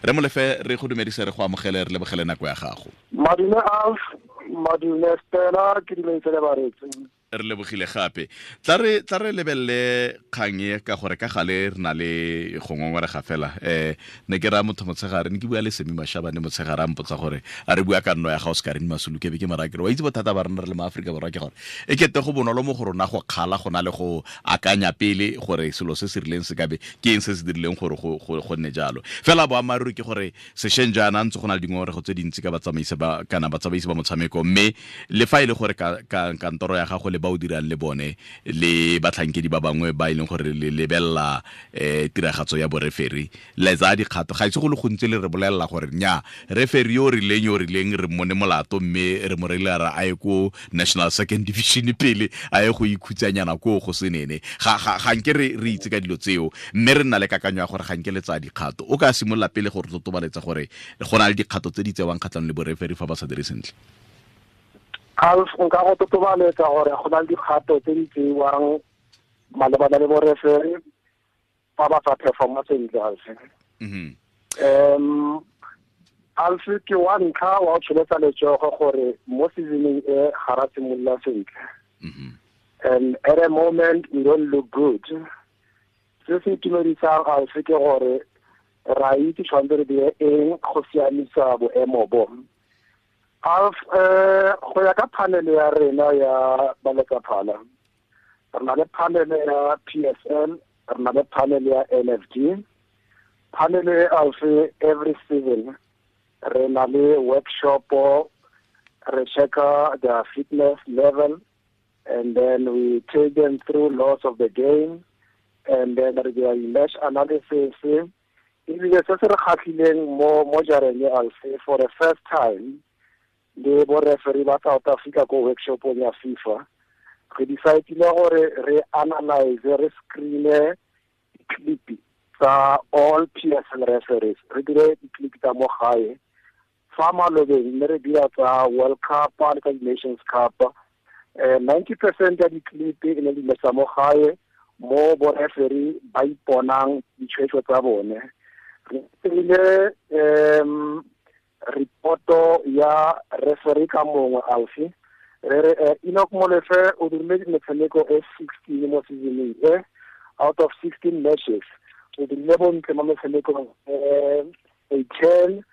Re Molefe, re go dumedise, re go amogele, re lebogele nako ya gago. Madume Alf, madume Stella, ke dumedise le bareetsi. Re lebogile gape. Tla re lebelele kgang e ka gore ka gale re na le go ngongorega fela. Ne ke raya motho motshegare, ne ke bua le Semi Mashabane motshegare, a mpotsa gore a re bua ka nno ya ga Oscar Masulu, ke be ke mara ke re wa itse bothata ba rena re le ma Aforika Borwa ke gore e kete go bonolo mo go rona go kgala go na le go akanya pele gore selo se se rileng se ka be ke eng se se dirileng gore go nne jalo. Fela boammaaruri ke gore sešweng jaana ntse go na le dingongorego tse dintsi ka batsamaisi ba kana batsamaisi ba motshameko, mme le fa e le gore kantoro ya gago le ba o dirang le bone le batlhankedi ba bangwe ba e leng gore le lebelela tiragatso ya boreferi, le tsaya dikgato. Ga ise go le gontsi le re bolelela gore nya referi yo rileng yo rileng re mmone molato, mme re mo reile ra a ye ko National Second Division pele a ye go ikhutsanyana ko go senene. Ga nke re itse ka dilo tseo, mme re nna le kakanyo ya gore ga nke le tsaya dikgato. O ka simolola pele gore totobaletsa gore go na le dikgato tse di tsewang kgatlhanong le boreferi fa ba sa dire sentle. Alf, nka go totobaletsa gore go na le dikgato tse di tsewang malebana le boreferi fa ba sa performa sentle, Alf. Alf, ke wa ntlha wa go tsholetsa letsogo gore mo seasoneng e ga ra simolola sentle. And at a moment we don't look good. Se se itumedisang Alf ke gore ra itse tshwanetse re dire eng go siamisa boemo bo. Alf, go ya ka panel ya rena ya baletsaphala, re na le panel ya PSL, re na le panel ya NFD. Panel e Alf, every season re na le workshop, re checka their fitness level, and then we take them through laws of the game, and then re dira match analysis. Ebile se se re kgatlhileng mo jareng e Alf, for the first time le bo referee ba South Africa ko workshopong ya FIFA, re decide-ile gore re analyze, re screen-e di-clip tsa all PSL referees, re dire di-clip tsa mo gae. Fa malobeng ne re dira tsa World Cup le tsa di-Nations Cup, 90% ya di-clip e ne di le tsa mo gae mo bo referee ba iponang ditshwetso tsa bone. Re dirile reporto ya referee ka mongwe Alf, re re Enoch Molefe o dirile metshameko e 16 mo seasoneng e, out of 16 matches o dirile bontle mo metshamekong e 10,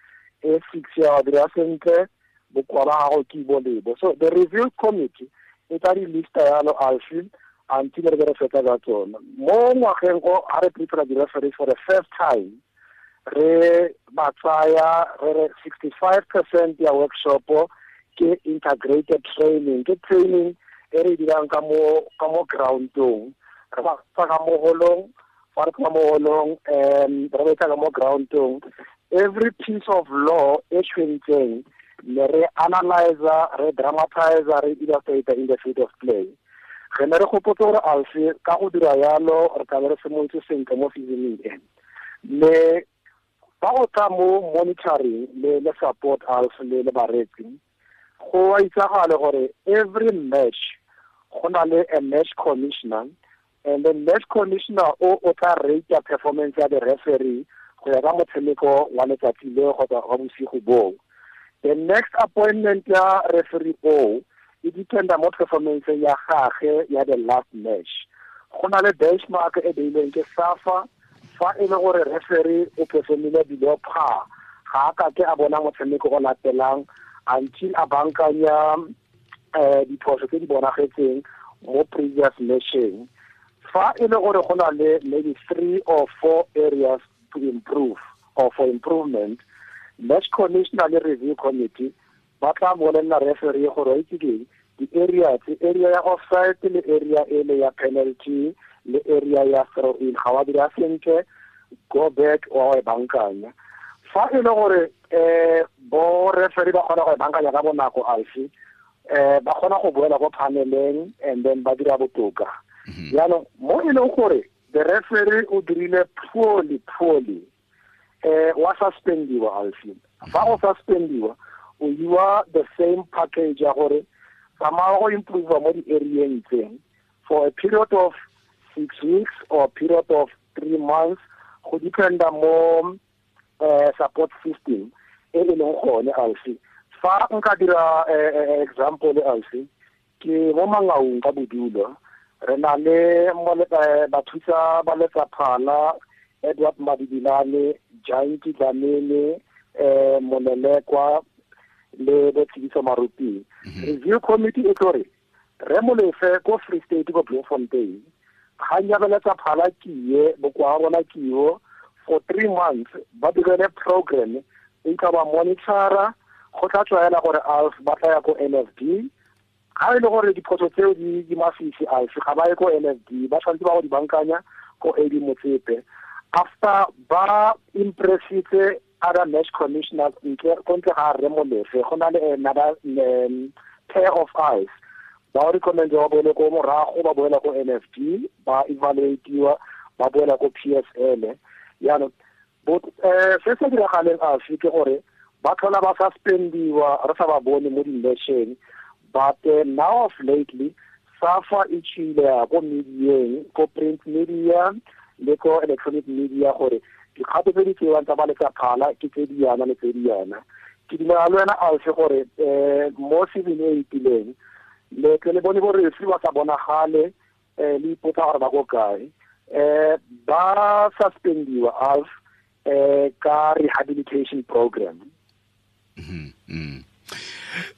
e 6 ya dira sentle, bokoa ba gago ke bo lebo. So the review committee e tla di lista yalo Alf until re be re fetsa ka tsona. Mo ngwageng o ha re prepare di-referees for the first time, re ba tsaya re re 65% ya workshop ke integrated training, ke training e re dirang ka mo groundong. Re ba tsa ka mo holong, fa re ka mo holong, re ba tsa ka mo groundong. Every piece of law e tshwentseng ne re analyzer, re dramatizer, re illustrate in the field of play. Re ne re gopotse gore Alf ka go dira yalo re tla be re simolotse sentle mo seasoneng e. Le ba go tla mo monitoring le support Alf le bareetsi, go a itsagale gore every match go na le a match commissioner, and the match commissioner o tla rate performance ya the referee go ya ka motshameko wa letsatsi leo kgotsa wa bosigo boo. The next appointment ya referee o e dependa mo performance ya gagwe ya the last match. Go na le benchmark e beilweng ke SAFA, fa e le gore referee o performile below par, ga a ka ke a bona motshameko o latelang until a bankanya diphoso tse di bonagetseng mo previous matcheng. Fa e le gore go na le maybe 3 or 4 areas to improve or for improvement, match commissioner le review committee ba tla bolelela referee gore itse ke di-area tse, area ya offside le area e le ya penalty le area ya throw in, ga wa dira sentle, go back wa e bankanya. Fa e le gore bo referee ba kgona go e bankanya ka bonako Alf, ba kgona go boela ko paneleng and then ba dira botoka. Jaanong mo e leng gore the referee o dirile poorly, wa suspendiwa Alf. Fa o suspendiwa o iwa the same package ya gore tsamaya go improve mo di-areeng tse for a period of 6 weeks or a period of 3 months, go dependa mo support system e e leng gone Alfi. Fa nka dira example Alfi, ke mo Mangaung ka bodulo, re na le bathusa ba letsaphala Edward Madibilane, Giant Dlamini, Molelekwa le Botshidiso Maruti. Review committee e tlo re re Molefe ko Free State ko Bloemfontein, ga nyabeletsa phala kie bokoa bona kio for 3 months, ba direle program e ka ba monitora go tla tswaela gore ALF ba tla ya ko NFD. Ga e le gore diphoso tseo di masisi ALF ga ba ye ko NFD, ba tshwanetse ba go di bankanya ko AD Motsepe. After ba impressitse other match commissioners ntle ga re Molefe, go na le another pair of eyes ba recommend ba boele ko morago, ba boela ko NFD, ba evaluatiwa, ba boela ko PSL. Jaanong se se diragaleng afe ke gore ba tlhola ba suspendiwa re sa ba bone mo di-matcheng. But now of lately SAFA e tšhile ya ko medieng, ko print media le ko electronic media, gore dikgato tse di tsewang tsa ba letsaphala ke tse di yana le tse di yana. Ke dumela le wena Alfi gore mo season e itileng le tle le bone bo referee ba sa bonagale, le ipotsa gore ba ko kae, ba suspendiwa Alf ka rehabilitation program.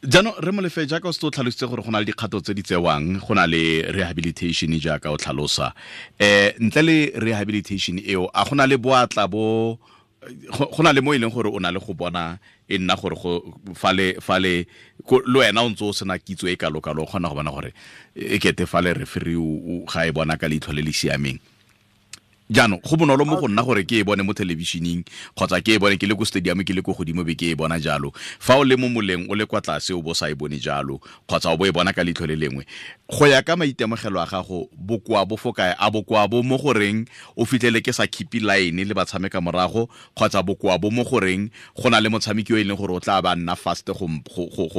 Jaanong re Molefe, jaaka o se o tlhalositse gore go na le dikgato tse di tsewang, go na le rehabilitation jaaka o tlhalosa, ntle le rehabilitation eo, a go na le boatla bo go na le mo e leng gore o na le go bona e nna gore go fale fale le wena o ntse o sena kitso e kalo-kalo, o kgona go bona gore e kete fale referee ga e bona ka leitlho le le siameng. Jaanong go bonolo mo go nna gore ke e bone mo thelebišeneng kgotsa ke e bone ke le ko stadium, ke le ko godimo be ke e bona jalo. Fa o le mo moleng o le kwa tlase o bo sa e bone jalo, kgotsa o bo e bona ka leitlho le lengwe. Go ya ka maitemogelo a gago, bokoa bo fo kae? A bokoa bo mo goreng o fitlhele ke sa keep line le batshameka morago, kgotsa bokoa bo mo goreng go na le motshameki yo e leng gore o tla ba nna fast go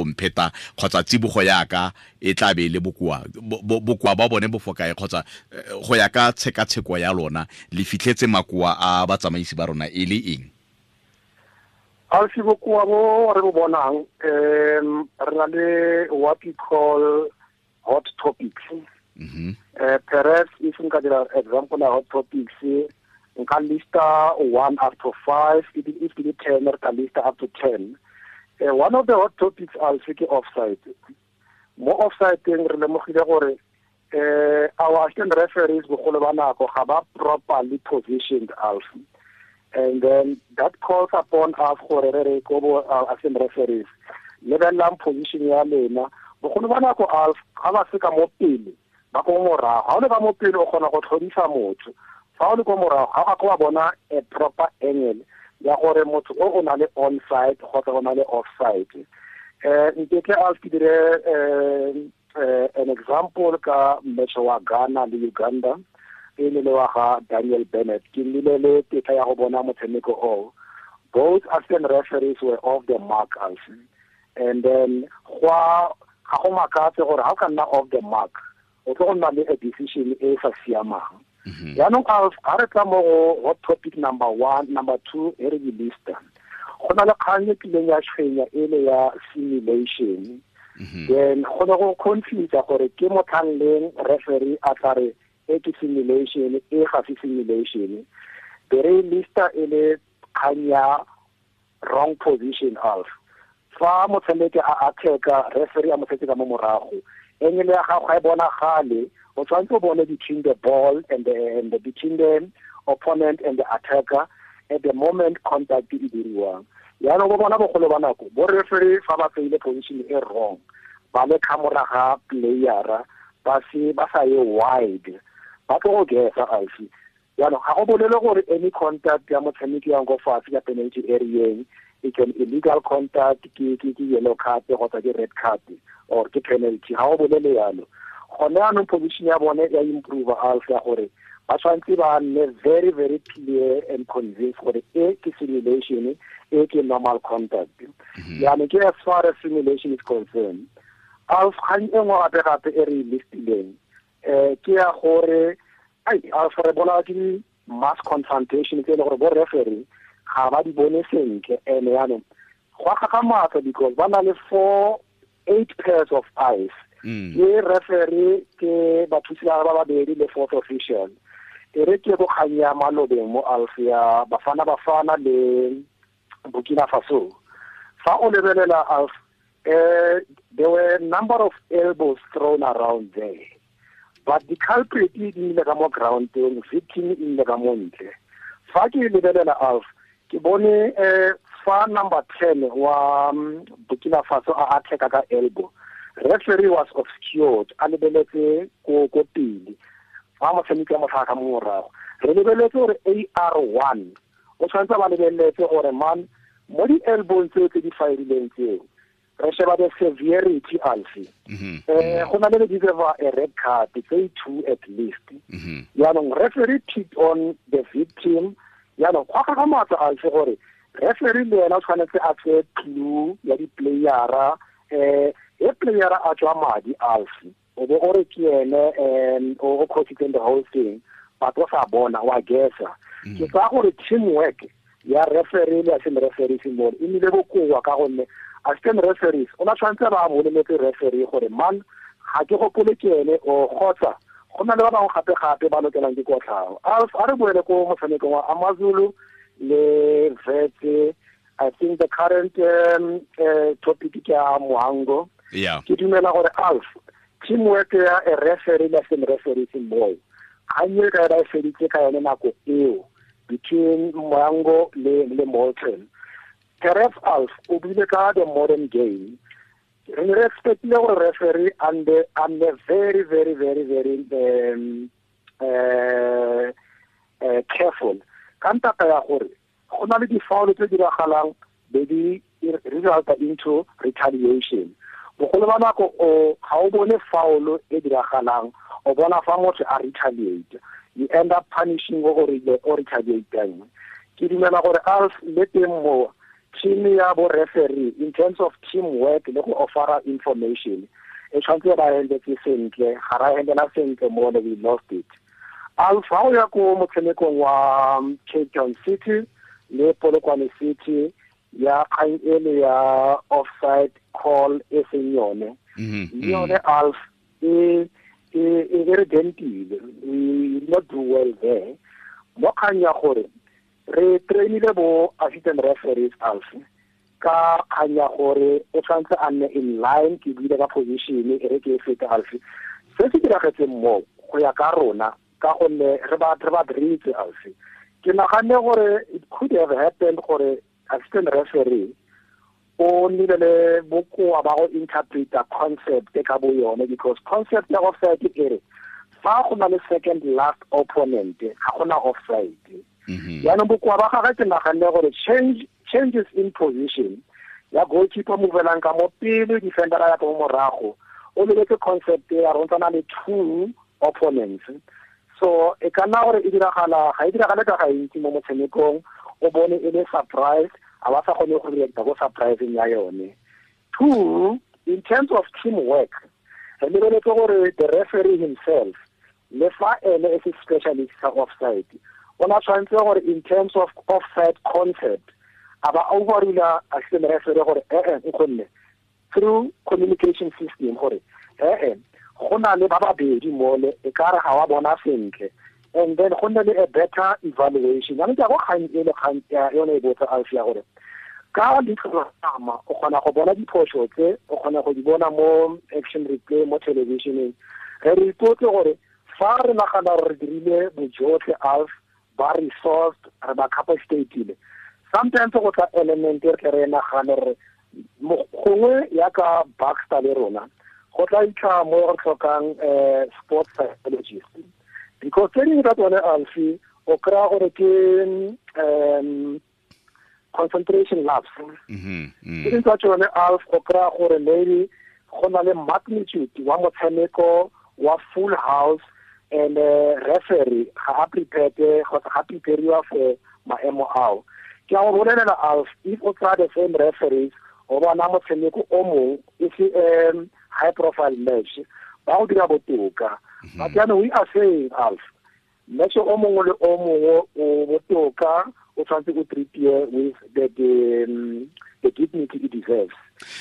mpheta, kgotsa tsibogo yaka e tla be e le bokoa? Bokoa ba bone bo fo kae, kgotsa go ya ka tshekatsheko ya lona le fitlhetse makoa a batsamaisi ba rona e le eng? Alfi, bokoa bo re bo bonang, re na le what we call hot topics. Perhaps if nka dira example ya hot topics, nka lista 1 up to 5, if ke 10, re ka lista up to 10. One of the hot topics Alfi ke offside. Mo offside teng re lemogile gore our assistant referees bogolo ba nako ga ba properly positioned Alfi, and then that calls upon us gore re re ko bo assistant referees lebelelang position ya lena. Bogolo ba nako Alfi ga ba se ka mo pele, ba ko morago. Ga o le ka mo pele o kgona go tlhodisa motho, fa o le ko morago ga o ka bona a proper angle ya gore motho o na le onside kgotsa o na le offside. Ntetle Alfi ke dire an example ka match wa Ghana le Uganda e le wa ga Daniel Bennett. Ke nnile le tetla ya go bona motshameko oo. Both assistant referees were off the mark Alfi, and then ga go makatse gore ga o ka nna off the mark o tlo go nna le a decision e sa siamang. Jaanong ga re tla mo go hot topic number 1, number 2 e re di lista, go na le kgang e kileng ya tshwenya e le ya simulation. Then go ne go confuse gore ke motlhang leng referee a tla re e ke simulation, e ga se simulation. Be re lista e le kgang ya wrong position Alf. Fa motshameki a attack-a, referee a mo setse ka mo morago, angle ya gago ga e bonagale, o tshwanetse o bone between the ball and the between the opponent and the attacker at the moment contact e diriwang. Jaanong bo bona bogolo ba nako bo referee fa ba tseile position e wrong, ba le ka moraga playera, ba se ba sa ye wide, ba tlo go gesa Alfi. Jaanong ga go bolele gore any contact ya motshameki yang ko fatshe ka penalty area e can illegal contact, ke yellow card kgotsa ke red card or ke penalty. Ga go bolele yalo. Gone jaanong position ya bone ya improve Alfi, ya gore ba tshwanetse ba nne very very clear and convinced gore e ke simulation, e ke normal contact. Jaanong ke as far as simulation is concerned. Alf, kgang e nngwe gape gape e re e listileng, ke ya gore Alf re bona ke mass confrontation tse e le gore bo referee ga ba di bone sentle. Ene yaanong go gagamatsa because ba na le 4 8 pairs of eyes, ke referee, ke bathusi ba babedi le fourth official. E re ke go kgang ya malobeng mo Alf, ya Bafana Bafana le Burkina Faso. Fa o lebelela, Alf, there were a number of elbows thrown around there, but the culprit e nnile ka mo groundeng, victim e nnile ka mo ntle. Fa ke lebelela, Alf, ke bone fa number 10 wa Burkina Faso a attack ka elbow, referee was obscured, a lebeletse ko pele fa motshameki wa motlhaga ka mo morago. Re lebeletse gore AR1 o tshwanetse ba lebeletse gore man mo di-elbowng tseo tse di firileng tseo, re sheba the severity, Alfi, go na le le deserve a red card tse two at least. Yaanong referee picked on the victim. Yaanong go gagamatsa, Alfi, gore referee le ena o tshwanetse a tseye clue ya di-playera. E playera a tswa madi, Alfi, o bo o re ke ene o causitseng the whole thing, but o sa bona wa guessa. Ke tsaya gore teamwork ya referee le assistant referees mo e nnile bokoa, ka gonne assistant referees o na tshwanetse ba boleletse referee gore man, ga ke gopole ke ene, o kgotsa go na le ba bangwe gape-gape ba lokelang ke kotlhao. A re boele ko motshamekong wa Amazulu le Wits. I think the current topic ke ya Mohango. Ke dumela gore, Alf, teamwork ya a referee le assistant referees moo kgang e ka ba e feditse ka yone nako eo between Mohango le Molten. Perhaps, Alf, o buile ka the modern game. Re ne re expectile gore referee and very very very very careful ka ntata ya gore go na le di-foul tse diragalang be di resulta into retaliation. Bogolo ba nako o ga o bone foul e diragalang, o bona fa motho a retaliate, you end up punishing o gore o retaliateng. Ke dumela gore, Alf, le teng mo team ya bo referee, in terms of teamwork le go offera information, e tshwanetse ba handletse sentle. Ga ra handlela sentle mo, we lost it. Alf, ha o ya ko motshamekong wa Cape Town City le Polokwane City, ya kgang ele ya offside call e seng yone, le yone, Alf, e re dentile. We did not do well there mo kgang ya gore re trainile bo assistant referees, Alf, ka kgang ya gore o tshwanetse a nne in line. Ke buile ka position, e re ke e fete, Alf. Se se diragetseng mo go ya ka rona, ka gonne re ba diritse, Alf, ke naganne gore it could have happened gore assistant referee o nnile le bokoa ba go interpreta concept ka bo yone, because concept ya offside e re fa go na le second last opponent, ga gona offside. Yaanong bokoa ba gagwe, ke naganne gore changes in position ya goalkeeper movelang ka mo pele, defender ya ka mo morago, o lebetse concept ya re na le two opponents. So e ka nna gore e diragala, ga e diragale ka gantsi mo motshamekong, o bone e le surprise, a ba sa kgone go reacta ko surpriseng ya yone. Two, in terms of teamwork, re lebeletse gore the referee himself, le fa ene e se specialist sa offside, o na tshwanetse gore in terms of offside concept a ba overrula assistant referee gore ee, nkgonne, through communication system gore ee, go na le ba babedi mole, e ka re ga wa bona sentle, and then go nne le a better evaluation. Jaanong ke ya go kgang e le kgang yone e botsa, Alf, ya gore ka leitlho la nama o kgona go bona diphoso tse, o kgona go di bona mo action replay mo televisioneng. Re ipotse gore fa re nagana gore re dirile bojotlhe, Alf, ba resourced, re ba capacitatile, sometimes go tla element e re tle re nagane re gongwe yaka Baxter le rona go tla itlha mo re tlhokang sports psychologist, because tse dingwe tsa tsone, Alfi, o kry-a gore ke concentration lapse. Tse dingwe tsa tsone, Alf, o kry-a gore maybe go na le magnitude wa motshameko wa full house and referee ga a prepared kgotsa ga prepariwa for maemo ao. Ke a go bolelela, Alf, if o tsaya the same referees, o bona motshameko o mongwe e se high profile match, ba go dira botoka. But jaanong we are saying, Alf, match o mongwe le o mongwe o botoka. o tshwanetse o treatiwe with the dignity it deserves.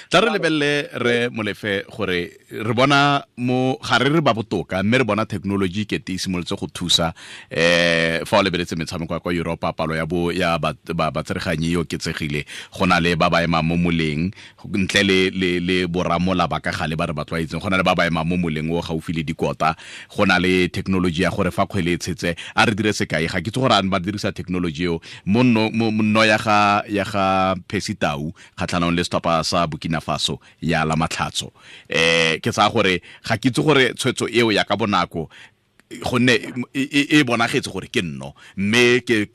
Tla re lebelele re Molefe gore re bona mo ga re re ba botoka, mme re bona technology ke te simolotse go thusa fa o lebeletse metshameko ya kwa Europa, palo ya bo ya batsereganyi e oketsegile, go na le ba ba emang mo moleng ntle le boramola ba ka gale ba re ba tlwaetseng, go na le ba ba emang mo moleng o gaufi le dikota, go na le technology ya gore fa kgwele e tshetse a re dire sekai, ga ke itse gore a ba dirisa technology eo mo nno ya ga Percy Tau kgatlhanong le setlhopha sa Burkina Faso ya la Matlhatso. Ke tsaya gore ga ke itse gore tshwetso eo ya ka bonako gonne e bonagetse gore ke nno, mme ke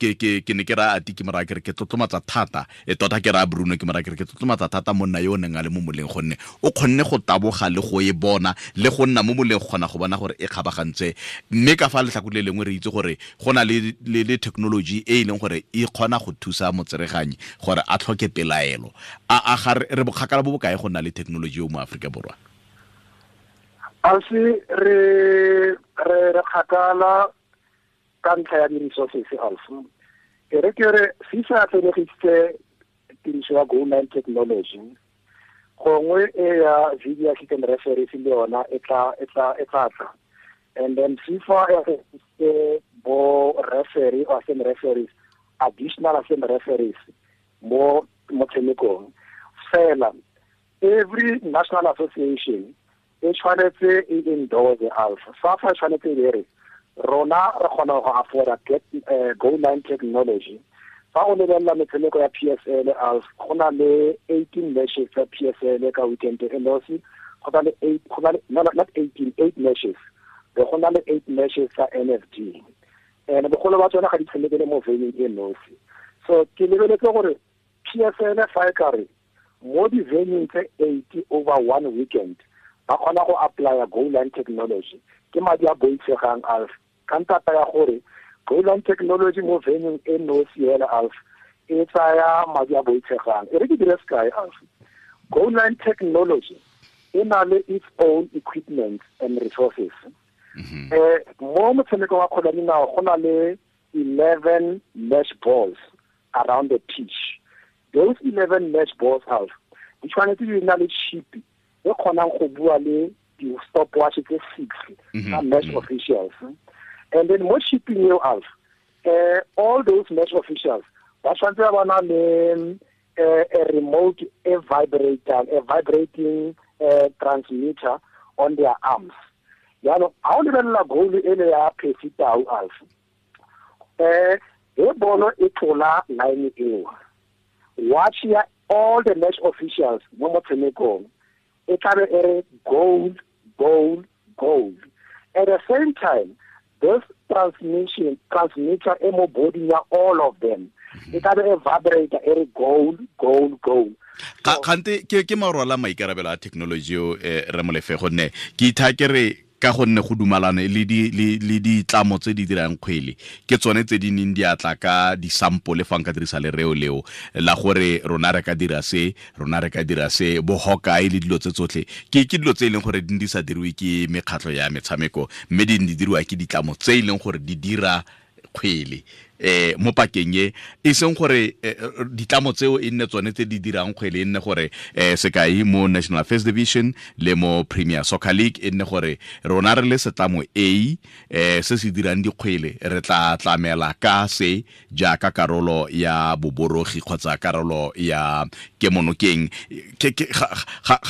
ne ke ra ati ke mora ke re ke tlotlomatsa thata, e tota ke ra Bruno ke mora ke re ke tlotlomatsa thata monna yo o neng a le mo moleng, gonne o kgonne go taboga le go e bona le go nna mo moleng go kgona go bona gore e kgabagantse. Mme ka fa letlhakore le lengwe re itse gore go na le technology e e leng gore e kgona go thusa motsereganyi gore a tlhoke pelaelo. A ga re bokgakala bo bokae go nna le technology eo mo Aforika Borwa? Alfi, re kgakala ka ntlha ya di-resources, Alfi. E re ke re FIFA atlenegisitse tiriso ya goal line technology, gongwe e ya video assistant referees le yona e tla tla. And then FIFA e atlenegisitse bo referee or assistant referees, additional assistant referees mo motshamekong. Fela every national association e tshwanetse e endorse Alpha. SAFA e tshwanetse e re rona re kgona go afforda goal line technology. Fa o lebelela metshameko ya PSL Alpha, go na le 18 matches tsa PSL ka weekend e nosi, go na le 8, go na le not 18, 8 matches. Go na le 8 matches tsa NFD. And bogolo ba tsona ga di tshamekele mo venue e nosi. So ke lebeletse gore PSL fa e ka re mo di-venue tse 80 over one weekend ba kgona go apply goal line technology, ke madi a boitshegang Alf. Ka ntata ya gore goal line technology mo venue e nosi hela Alf e tsaya madi a boitshegang. E re ke dire sekai Alf, goal line technology e na le its own equipment and resources. Mo motshameko wa kgwele ya dinao go na le 11 match balls around the pitch. Those 11 match balls Alf di tshwanetse di na le chip e kgonang go bua le di-stopwatch tse 6 tsa match officials. And then mo chipping eo Alf, all those match officials ba tshwanetse ba na le a remote, a vibrator, a vibrating transmitter on their arms. Jaanong ga o lebelela goal ele ya Percy Tau Alf, e bolo e tlola line eo, watch ya all the match officials mo motshamekong e tlabe e re goal, goal, goal. At the same time, this transmitter e mo body ya all of them e tlabe e vibrate e re goal, goal, goal. Kgante ke marwala maikarabelo a technology eo re Molefe, gonne ke itha ke re ka gonne go dumalane le ditlamo tse di dirang kgwele ke tsone tse di neng di atla ka di-sample fa nka dirisa lereo leo la gore rona re ka dira se, rona re ka dira se, bo Hawkeye le dilo tse tsotlhe ke dilo tse e leng gore di sa diriwe ke mekgatlho ya metshameko, mme di diriwa ke ditlamo tse e leng gore di dira kgwele mo pakeng e e seng gore ditlamo tseo e nne tsone tse di dirang kgwele, e nne gore sekai mo National First Division le mo Premier Soccer League e nne gore rona re le setlamo A se se dirang dikgwele re tla tlamela ka se jaaka karolo ya boborogi kgotsa karolo ya kemonokeng. Ga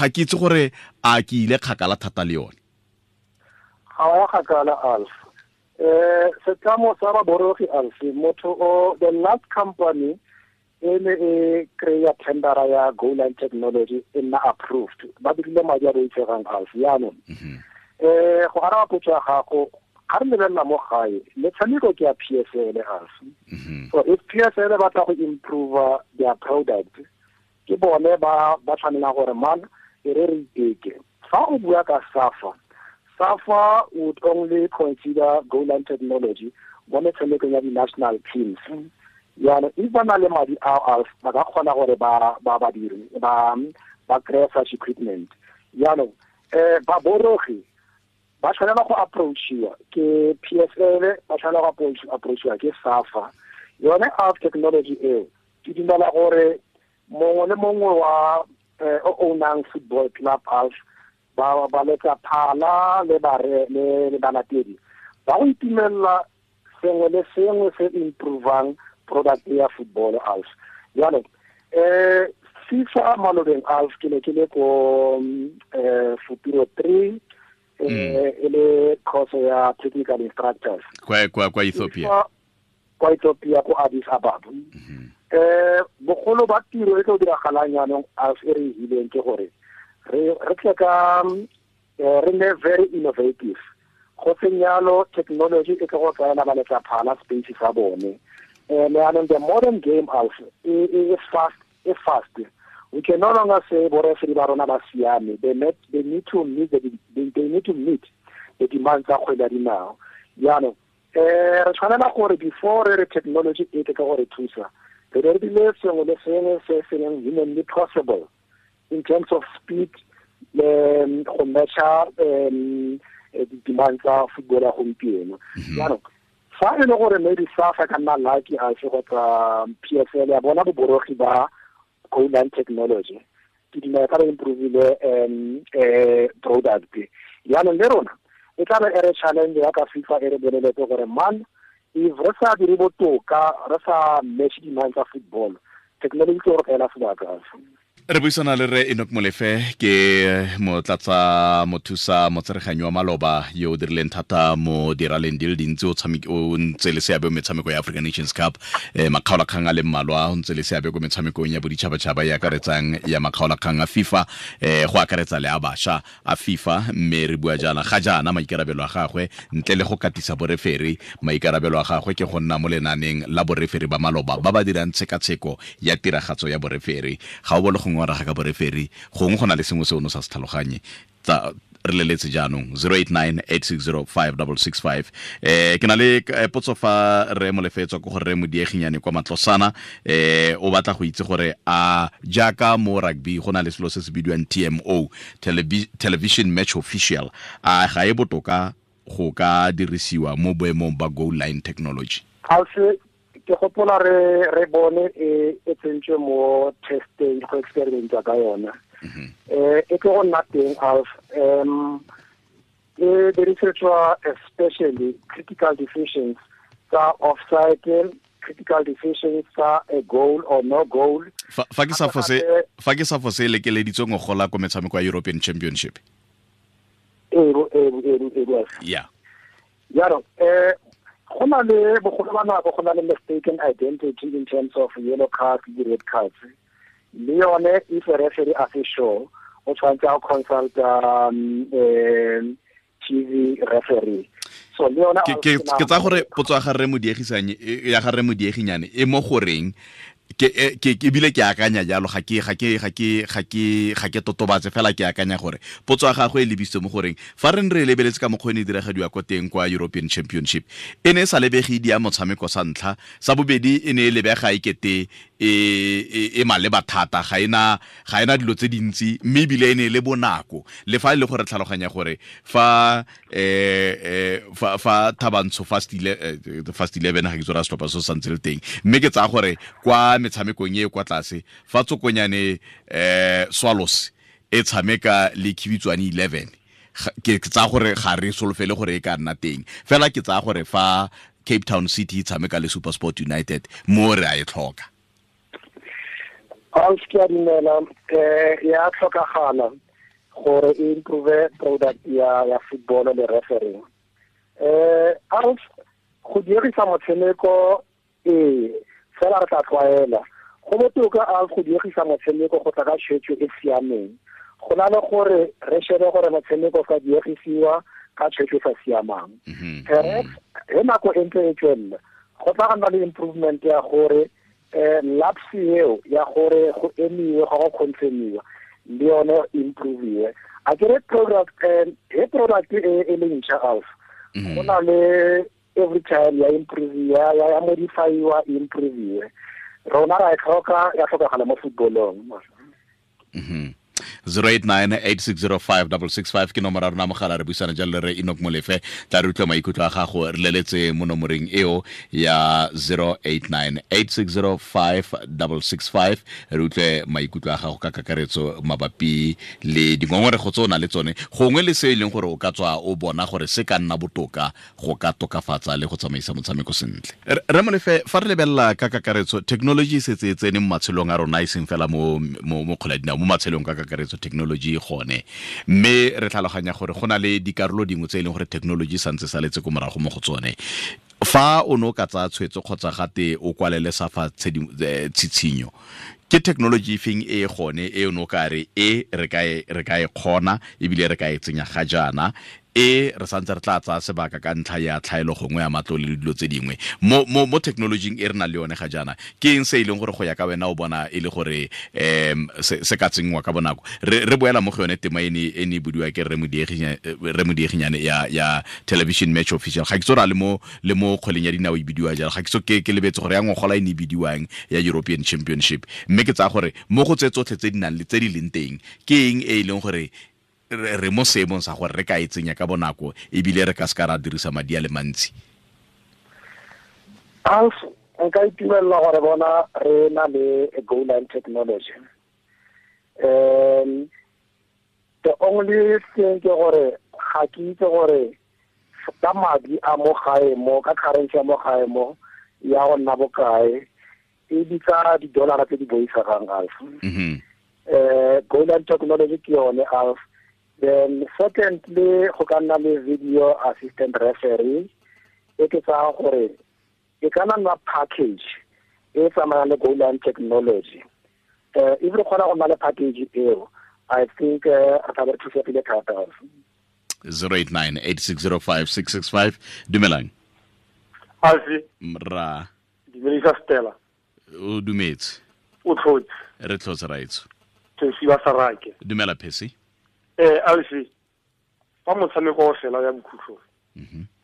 ke itse gore a ke ile kgakala thata le yone. Ga wa kgakala Alf. Setlamo sa baborogi Alfi, motho o the last company e ne e kry-a tendera ya goal line technology e nna approved, ba dirile madi a boitshegang Alfi. Jaanong go araba potso ya gago, ga re lebelela mo gae metshameko ke ya PSL Alfi. So if PSL ba tla go improve their product, ke bone ba tshwanelang gore man e re re iteke. Fa o bua ka SAFA, SAFA would only consider goal line technology mo metshamekong ya di-national teams. Jaanong if ba na le madi ao ba ka kgona gore ba dire ba kry-e such equipment. Jaanong baborogi ba tshwanela go approachiwa ke PSL, ba tshwanela go approachiwa ke SAFA. Yone ALF technology eo ke dumela gore mongwe le mongwe wa o ownang football club ALF ba letsa phala le bare le balatedi ba go itumelela sengwe le sengwe se improvang product ya football ALF. Jaanong FIFA malobeng ALF ke ne ke le ko Futuro 3 e le course ya technical instructors kwa Ethiopia, kwa Ethiopia ko Addis Ababa. Bogolo ba tiro e tlo diragalang jaanong ALF e re e hileng ke gore re tle ka re nne very innovative. Go seng yalo technology e tlo go tsaela ba letsa phala space sa bone. Jaanong the modern game ALF e fast, e fast. We can no longer say bo referee ba rona ba siame. They need to meet the demands tsa kgwele ya dinao. Jaanong re tshwanela gore before re technology e tle ka gore thusa, re re dile sengwe le sengwe se se leng humanly possible in terms of speed, go matcha di-demand tsa football ya gompieno. Jaanong fa e le gore maybe SAFA ka nna lucky a se kgotsa PSL ya bona boborogi ba goal line technology, ke dumela ka re improvile product. Jaanong le rona e tla be e re challenge ya ka FIFA e re boleletse gore man, if re sa dire botoka, re sa match demand tsa football, technology ke gore kaela sebaka. Re buisana le re Enoch Molefe, ke motlatsa mothusa motsereganyi wa maloba yo o dirileng thata mo diraleng di le dintsi, o ntse le seabe mo metshameko ya African Nations Cup, makgaolakgang a le mmalwa, o ntse le seabe ko metshamekong ya boditšhabatšhaba e akaretsang ya makgaolakgang a FIFA, go akaretsa le a bašwa a FIFA. Mme re bua jaana ga jaana maikarabelo a gagwe ntle le go katisa boreferi, maikarabelo a gagwe ke go nna mo lenaneng la boreferi ba maloba ba ba dirang tshekatsheko ya tiragatso ya boreferi. Ga o bone go ngora ga ka boreferi, gongwe go na le sengwe se o no sa se tlhaloganye. Tsa re leletse jaanong 0898605665. Ke na le potso fa re Molefe tswa ko gore re Modieginyane kwa Matlosana, o batla go itse gore a jaaka mo rugby go na le selo se se bidiwang TMO, television match official, a ga e botoka go ka dirisiwa mo boemong ba goal line technology? Ke gopola re bone e tsentswe mo testing go experimenta ka yona. E tlo go nna teng ALF. E dirisetswa especially critical decisions tsa offside, critical decisions tsa a goal or no goal. Fa ke sa fose lekeleditswe ngogola ko metshameko ya European Championship. Yeah. Jaanong go na le bogolo ba nako go na le mistaken identity in terms of yellow cards le red cards. Le yone if a referee a se sure, o tshwanetse a consult TV referee. So le yone ke tsa gore potso ya ga re Modiegisanye ya ga re Modieginyane e mo goreng ke ebile ke akanya jalo, ga ke totobatse fela, ke akanya gore potso ya gagwe e lebisitse mo goreng fa re re lebeletse ka mokgwa e ne e diragadiwa ko teng kwa European Championship, e ne e sa lebege di ya motshameko sa ntlha, sa bobedi e ne e lebega e kete e maleba thata, ga ena dilo tse dintsi, mme ebile e ne e le bonako. Le fa e le gore tlhaloganya gore fa fa Thabantsho Fast 11 ga ke tsora setlhopha se santse le teng, mme ke tsaya gore kwa metshamekong e kwa tlase fa Tsokonyane Swallows e tshameka le Khibitswane 11, ke tsaya gore ga re solofele gore e ka nna teng. Fela ke tsaya gore fa Cape Town City e tshameka le SuperSport United, mo re a e tlhoka. Alf, ke a dumela, ya tlhokagala gore e improve product ya football le referee. Alf, go dirisa motshameko fela re tla tlwaela. Go botoka Alf go dirisa motshameko go tla ka tshwetso e siameng, go na le gore re shebe gore motshameko ka diegisiwa ka tshwetso e sa siamang. Perhaps he nako e ntse e tswelela, go tla nna le improvement ya gore lapse eo ya gore go emiwe ga go confirmiwa le yone improve. A ke re product he product e le ntšha Alf, go na le every time ya improve ya modifyiwa improve. Rona ra e tlhoka, ya tlhokagala mo footballong. 089 860 5665 ke nomoro ya rona mogala. Re buisana jalo le re Enoch Molefe. Tla re utlwa maikutlo a gago, re leletse mo nomoreng eo ya 089 860 5665, re utlwe maikutlo a gago ka kakaretso mabapi le dingongorego tse o na le tsone, gongwe le se e leng gore o ka tswa o bona gore se ka nna botoka go ka tokafatsa le go tsamaisa motshameko sentle. Re Molefe, fa re lebelela ka kakaretso, technology e setse e tsene mo matshelong a rona, e seng fela mo kgwele ya dinao, mo matshelong ka kakaretso technology e gone, mme re tlhaloganya gore go na le dikarolo dingwe tse e leng gore technology santse saletse ko morago mo go tsone. Fa o ne o ka tsaya tshwetso kgotsa gate o kwalele SAFA tshitshinyo, ke technology e feng e gone e o ne o ka re e re ka e kgona ebile re ka e tsenya ga jaana, e re santse re tla tsaya sebaka ka ntlha ya tlhaelo gongwe ya matlole le dilo tse dingwe mo technologyng e re nang le yone ga jaana? Ke eng se e leng gore go ya ka wena o bona e le gore se ka tsenngwa ka bonako? Re boela mo go yone tema e ne e budiwa ke Rre Modieginyane ya television match official. Ga ke tso ra le mo kgweleng ya dinao e bidiwa jalo, ga ke so ke lebetse gore ya ngogola e ne e bidiwang ya European Championship, mme ke tsaya gore mo go tse tsotlhe tse di nang le tse di leng teng, ke eng e e leng gore re mo seemong sa gore re ka e tsenya ka bonako ebile re ka se ka ra dirisa madi a le mantsi? Alf, nka itumelela gore bona re na le goal line technology. The only thing ke gore ga ke itse gore ka madi a mo gae mo, ka currency ya mo gae mo, ya go nna bokae, e bitsa di-dollara tse di boitshegang, Alf. Goal line technology ke yone, Alf. Then secondly, go ka nna le video assistant referee e ke tsaya gore e ka nna package e tsamayang le goal line technology. If re kgona go nna le package eo, I think re tla be re thusegile thata. 089 8605 665. Dumelang. Alfi. Ra. Dumedisa Stella. O dumetse. O tlhotse. Re tlhotse, raitso. Phesi wa Sarake. Dumela, Phesi. Alfi, fa motshameko o fela ya bokhutlho,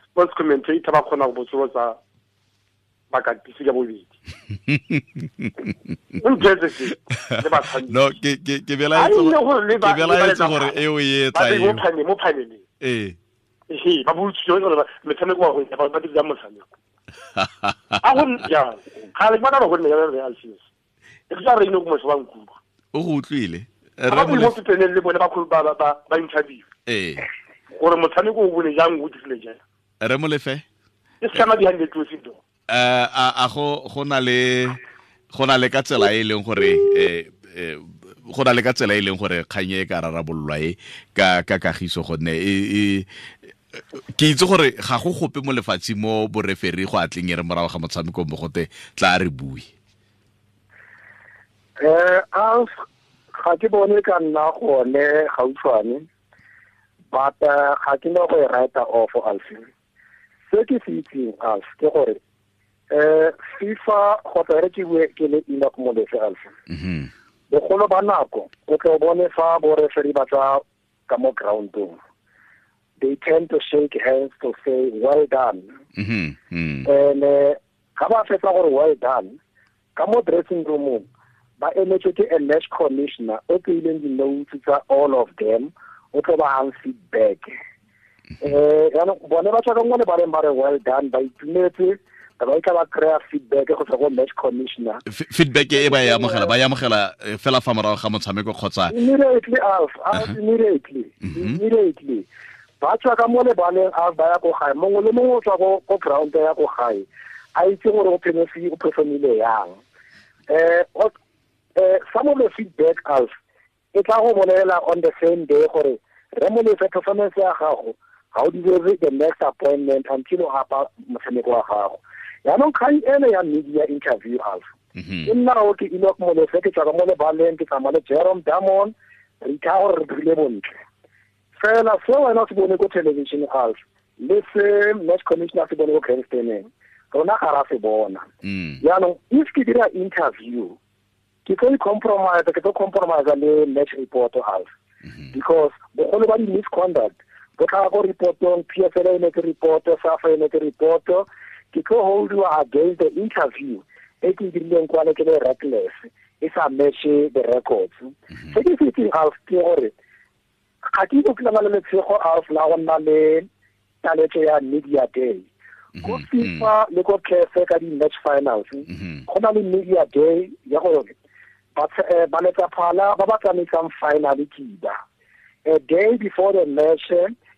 sports commentator ba kgona go botsolotsa bakatisi ka bobedi, o ntse se le batshameki. No, ke belaetse gore eo e etla eo mo paneleng. Ee, ba botsitse gore metshameko wa go ba dira motshameko a go jang ga le bona ba go nne ya re Alfi, e ke tsa re ino go motho wa nkutlwa. O go utlwile. Ba mo pepeneng le bone ba interview gore motshameko o bone jang, o dirile jang. Re Molefe. E se behind the closed door. A go na le ka tsela e leng gore go na le ka tsela e leng gore kgang e ka rarabololwa e ka kagiso, gonne e ke itse gore ga go gope mo lefatsheng mo bo-referee go atleng e re morago ga motshameko mo gote tla re bue? Alf, ga ke bone ka nna gone gautshwane, but ga ke no go e write off, Alf. Se ke se itseng, Alf, ke gore FIFA, kgotsa re ke bue ke le Enoch Molefe, Alf, bogolo ba nako o tlo bone fa bo referee ba tswa ka mo groundong, they tend to shake hands to say well done. And ga ba fetsa gore well done, ka mo dressing roomong ba emetswe ke a match commissioner o tseileng di-notes tsa all of them, o tlo ba hang feedback. Yaanong bone ba tswa ka mo lebaleng ba re well done, ba itumetse, ba ba itla ba kry-a feedback go tswa go match commissioner. Feedback e ba e amogela, ba e amogela fela fa morago ga motshameko kgotsa? Immediately, Alf. Alf, immediately, immediately ba tswa ka mo lebaleng, Alf, ba ya ko gae. Mongwe le mongwe o tswa ko ground ya ko gae a itse gore o phemesi o performile yang. Some of the feedback, Alf, e tla go bolela on the same day gore re Molefe, performance ya gago ga o deserve the next appointment until o gapa motshameko wa gago. Yaanong kgang ene ya media interview, Alf, ke nna o ke Enoch Molefe, ke tswa ka mo lebaleng, ke tsamaya le Jerome Damon, re ithaa gore re dirile bontle. Fela se wena o se bone ko television, Alf, le se match commissioner se bone ko grandstandeng, rona ga ra se bona. Yaanong if ke dira interview, ke tlo i-compromise, ke tlo compromise le match report, Alf, because bogolo ba di-misconduct bo tlhaga ko reportong. PSL e netse report, SAFA e netse report. Ke tlo holdiwa against the interview e ke e dirileng kwale ke le reckless. E sa match the records. Se ke se itseng, Alf, ke gore ga ke itse ke le letshego, Alf, la go nna le taletso ya media day ko FIFA le ko CAF ka di-match finals. Go na le media day ya gore ba letsaphala ba ba tsamaisang final kiba a day before the match,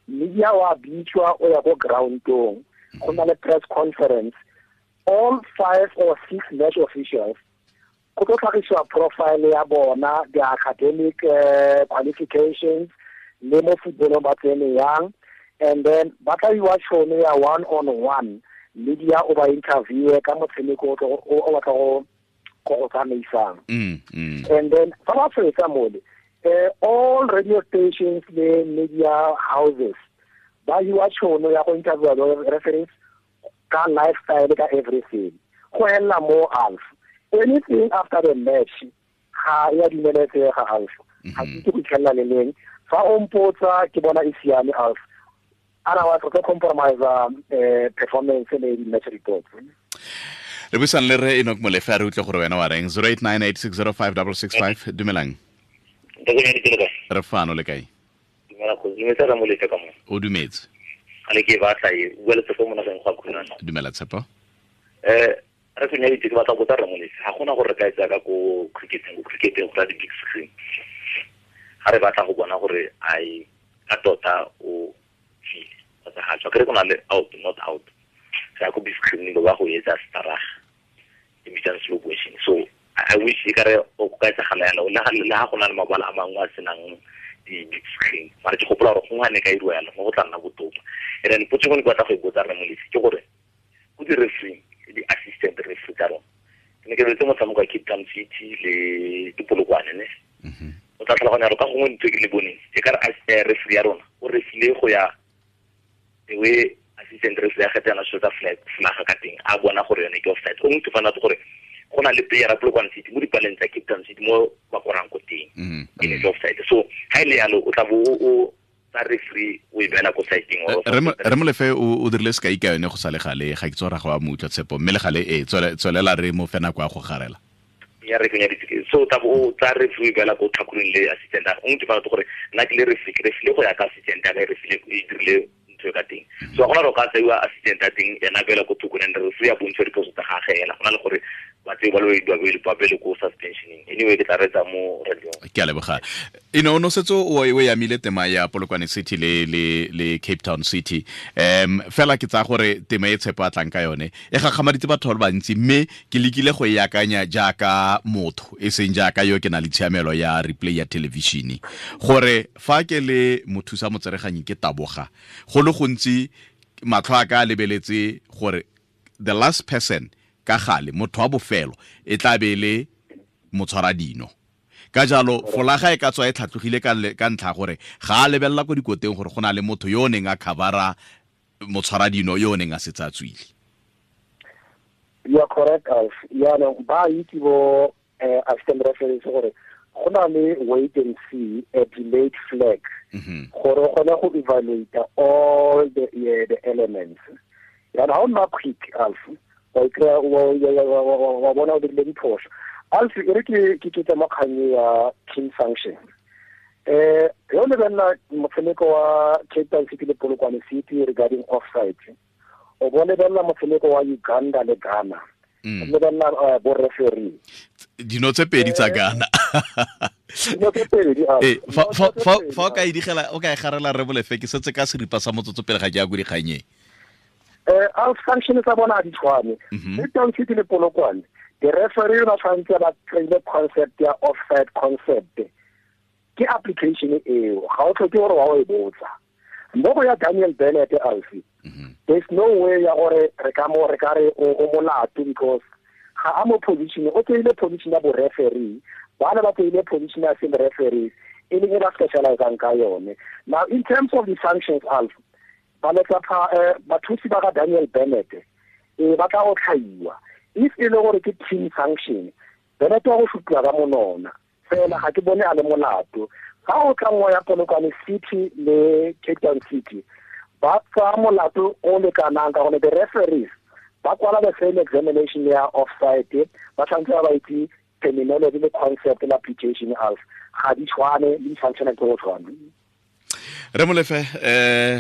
media wa bitswa o ya ko groundong, go na le press conference, all five or six match officials go tlo tlhagisiwa profile ya bona, the academic qualifications le mo footballong ba tsene yang, and then ba tla iwa tšhono ya one on one, media o ba interviewe ka motshameko o batla go tsamaisang. And then fa ba fetsa mole, all radio stations le media houses ba iwa tšhono ya go interviewa the referees ka lifestyle, ka everything. Go hela mo, Alf, anything after the match ga ya dumeletsega, Alf. Ga ke itse go itlhelela le leng fa o mpotsa, ke bona e siame, Alf. Otherwise re tlo compromise performance le di-match reports. Re buisang le re Enoch Molefe, a re utlwe gore wena wa reng. 0898605665. Dumelang. Re fano, le kae? O dumetse. Ale ke batla e bua le Tshepo mo nageng go khunana. Dumela, Tshepo. Re se nyaditse, ke batla go botsa Ramolefe, ga gona gore re ka etsa ka ko cricketeng go di big screen ga re batla go bona gore ai ka tota o tswile kgotsa ga tswa, kere go na le out, not out, re ya ko big screen ba go etsa staraga e bitsang slow motion. So I wish e kare o ka etsagala yalo le ga go na le mabala a mangwe a senang di-big screen, mara ke gopola gore gongwe ga ne ka iriwa yalo mo go tla nna botoka. And then potso e ke batla go e botsa Ramolefe ke gore ko di-referee, di-assistant referee tsa rona, ke ne ke lebetse motshameko wa Cape Town City le Dipolokwane ne, o tla tlhaloganya gore ka gongwe ntho e ke le boneng e ka re referee ya rona o refile go ya the way assistant referee ya kgetha yona selo tsa flaga ka teng, a bona gore yone ke offside. O motho fana gore go na le player ya Polokwane City mo dipaleng tsa Cape Town City mo ba korang ko teng, e ne ke offside. So ha e le yalo, o tla bo o tsa referee o e beela ko sideng. Re Molefe o dirile sekai ka yone go sa le gale, ga ke tse gore ga wa mo utlwa, Tshepo, mme le gale ee, tswelela, re mo fe nako ya go garela. Ya re kenya so tla bo o tsa referee beela ko tlhakoreng le assistant o ntse fana gore nna ke le referee, ke refile go ya ka assistant ya ka e refile e dirile ntho e ka teng. So ga gona gore o ka tseiwa assistant ya teng ena beela ko thoko and referee ya bontsha diphoso tsa gage ena, go na le gore ba tseo ba le ba bele ko suspensioning. Anyway, ke tla retsa mo radio. Ke a leboga. Eno no setse o yamile tema ya Polokwane City le Cape Town City, fela ke tsaya gore tema e Tshepo a tlang ka yone e gakgamaditse batho ba le bantsi, mme ke lekile go e akanya jaaka motho e seng jaaka yo ke na le tshiamelo ya replay ya television, gore fa ke le mothusa motsereganyi ke taboga go le gontsi, matlho a ka a lebeletse gore the last person, ka gale motho wa bofelo e tla be le motshwara dino. Ka jalo folaga e ka tswa e tlhatlogile ka ntlha gore ga a lebelela ko dikoteng gore go na le motho yo o neng a covera motshwara dino yo o neng a setse a tswile. You are correct, Alf. Yaanong ba itse bo assistant referees gore go na le wait and see, a delayed flag, gore o kgone go evaluate all the elements. Yaanong ga o nna quick, Alf, wa ikry-a wa bona o dirile diphoso. Alf, e re ke ketsa mo kgang ya team sanction. Yo lebelela motshameko wa Cape Town City le Polokwane City regarding offside, o bo lebelela motshameko wa Uganda le Ghana, o lebelela bo referee. Dino tse pedi tsa Ghana. Dino tse pedi. Ee, fa o ka e digela, o ka e garela re Bolefe, ke setse ka seripa sa motsotso pele ga ke ya ko dikganyeng. Al sanction tsa bona di tshwane. Cape Town City le Polokwane, the referee ba tshwanetse ba kry-ile concept ya offside. Concept ke application eo, ga o tlhoke gore wa o e botsa mo go ya Daniel Bennett. Alfi, there's no way ya gore re ka mo re ka re o molato, because ga a mo position, o tseile position ya bo referee, bana ba tseile position ya same referees e leng e ba specializang ka yone. Now, in terms of the sanctions, Alf, ba letsa bathusi ba ga Daniel Bennett e ba tla go tlhaiwa. If e le gore ke team sanction, Bennett wa go shupiwa ka monona fela, ga ke bone a le molato. Ga o tla nngwe ya Polokwane City le Cape Town City, ba tsaya molato o lekanang ka gone the referees ba kwala the same examination ya offside, ba tshwanetse ba ba itse. Terminology le concept le application alf ga di tshwane, di functiona ke go tshwana. Re Molefe,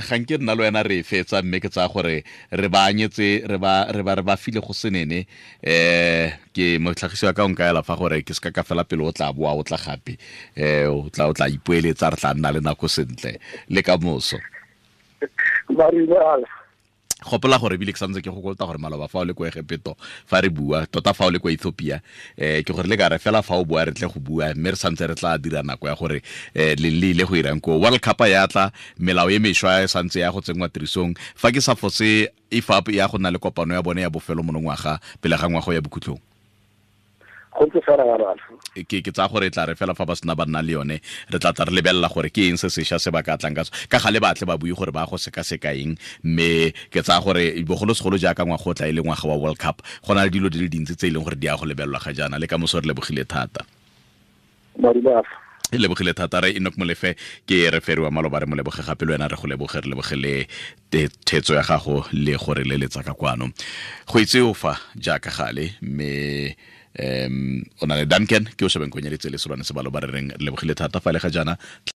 ga nke nna le wena re e fetsa, mme ke tsaya gore re ba anyetse, re ba file go senene. Ke motlhagisi wa ka o nkaela fa gore ke seka ka fela pele, o tla boa, o tla gape, o tla ipoeletsa, re tla nna le nako sentle le ka moso. Marile, Alf. Gopola gore ebile ke santse ke go kolota gore maloba fa o le ko Egepeto fa re bua, tota fa o le kwa Ethiopia, ke gore le ka re fela fa o bua re tle go bua, mme re santse re tla dira nako ya gore le le ile go irang ko World Cup ya tla. Melao e mešwa e santse ya go tsenngwa tirisong. Fa ke sa fose, IFAB ya go nna le kopano ya bone ya bofelo monongwaga pele ga ngwago ya bokhutlong. Go ntse fela yalo, Alf. Ke tsaya gore e tla re fela fa ba sena ba nna le yone, re tla tla re lebelela gore ke eng se sešwa se ba ka tlang ka ka gale, batle ba bue gore ba go sekaseka eng. Mme ke tsaya gore bogolosegolo jaaka ngwaga o tla e le ngwaga wa World Cup, go na le dilo di le dintsi tse e leng gore di ya go lebelelwa ga jaana. Le ka moso, re lebogile thata. Marile, Alf. E lebogile thata re Enoch Molefe, ke referee wa maloba. Re mo leboge gape, le wena re go leboge, re leboge le thetso ya gago le gore le letsa ka kwano go itse o fa jaaka gale. Mme o na le Duncan ke o shebeng konyeditse le solwane sebalo ba re reng re lebogile thata fa le ga jaana.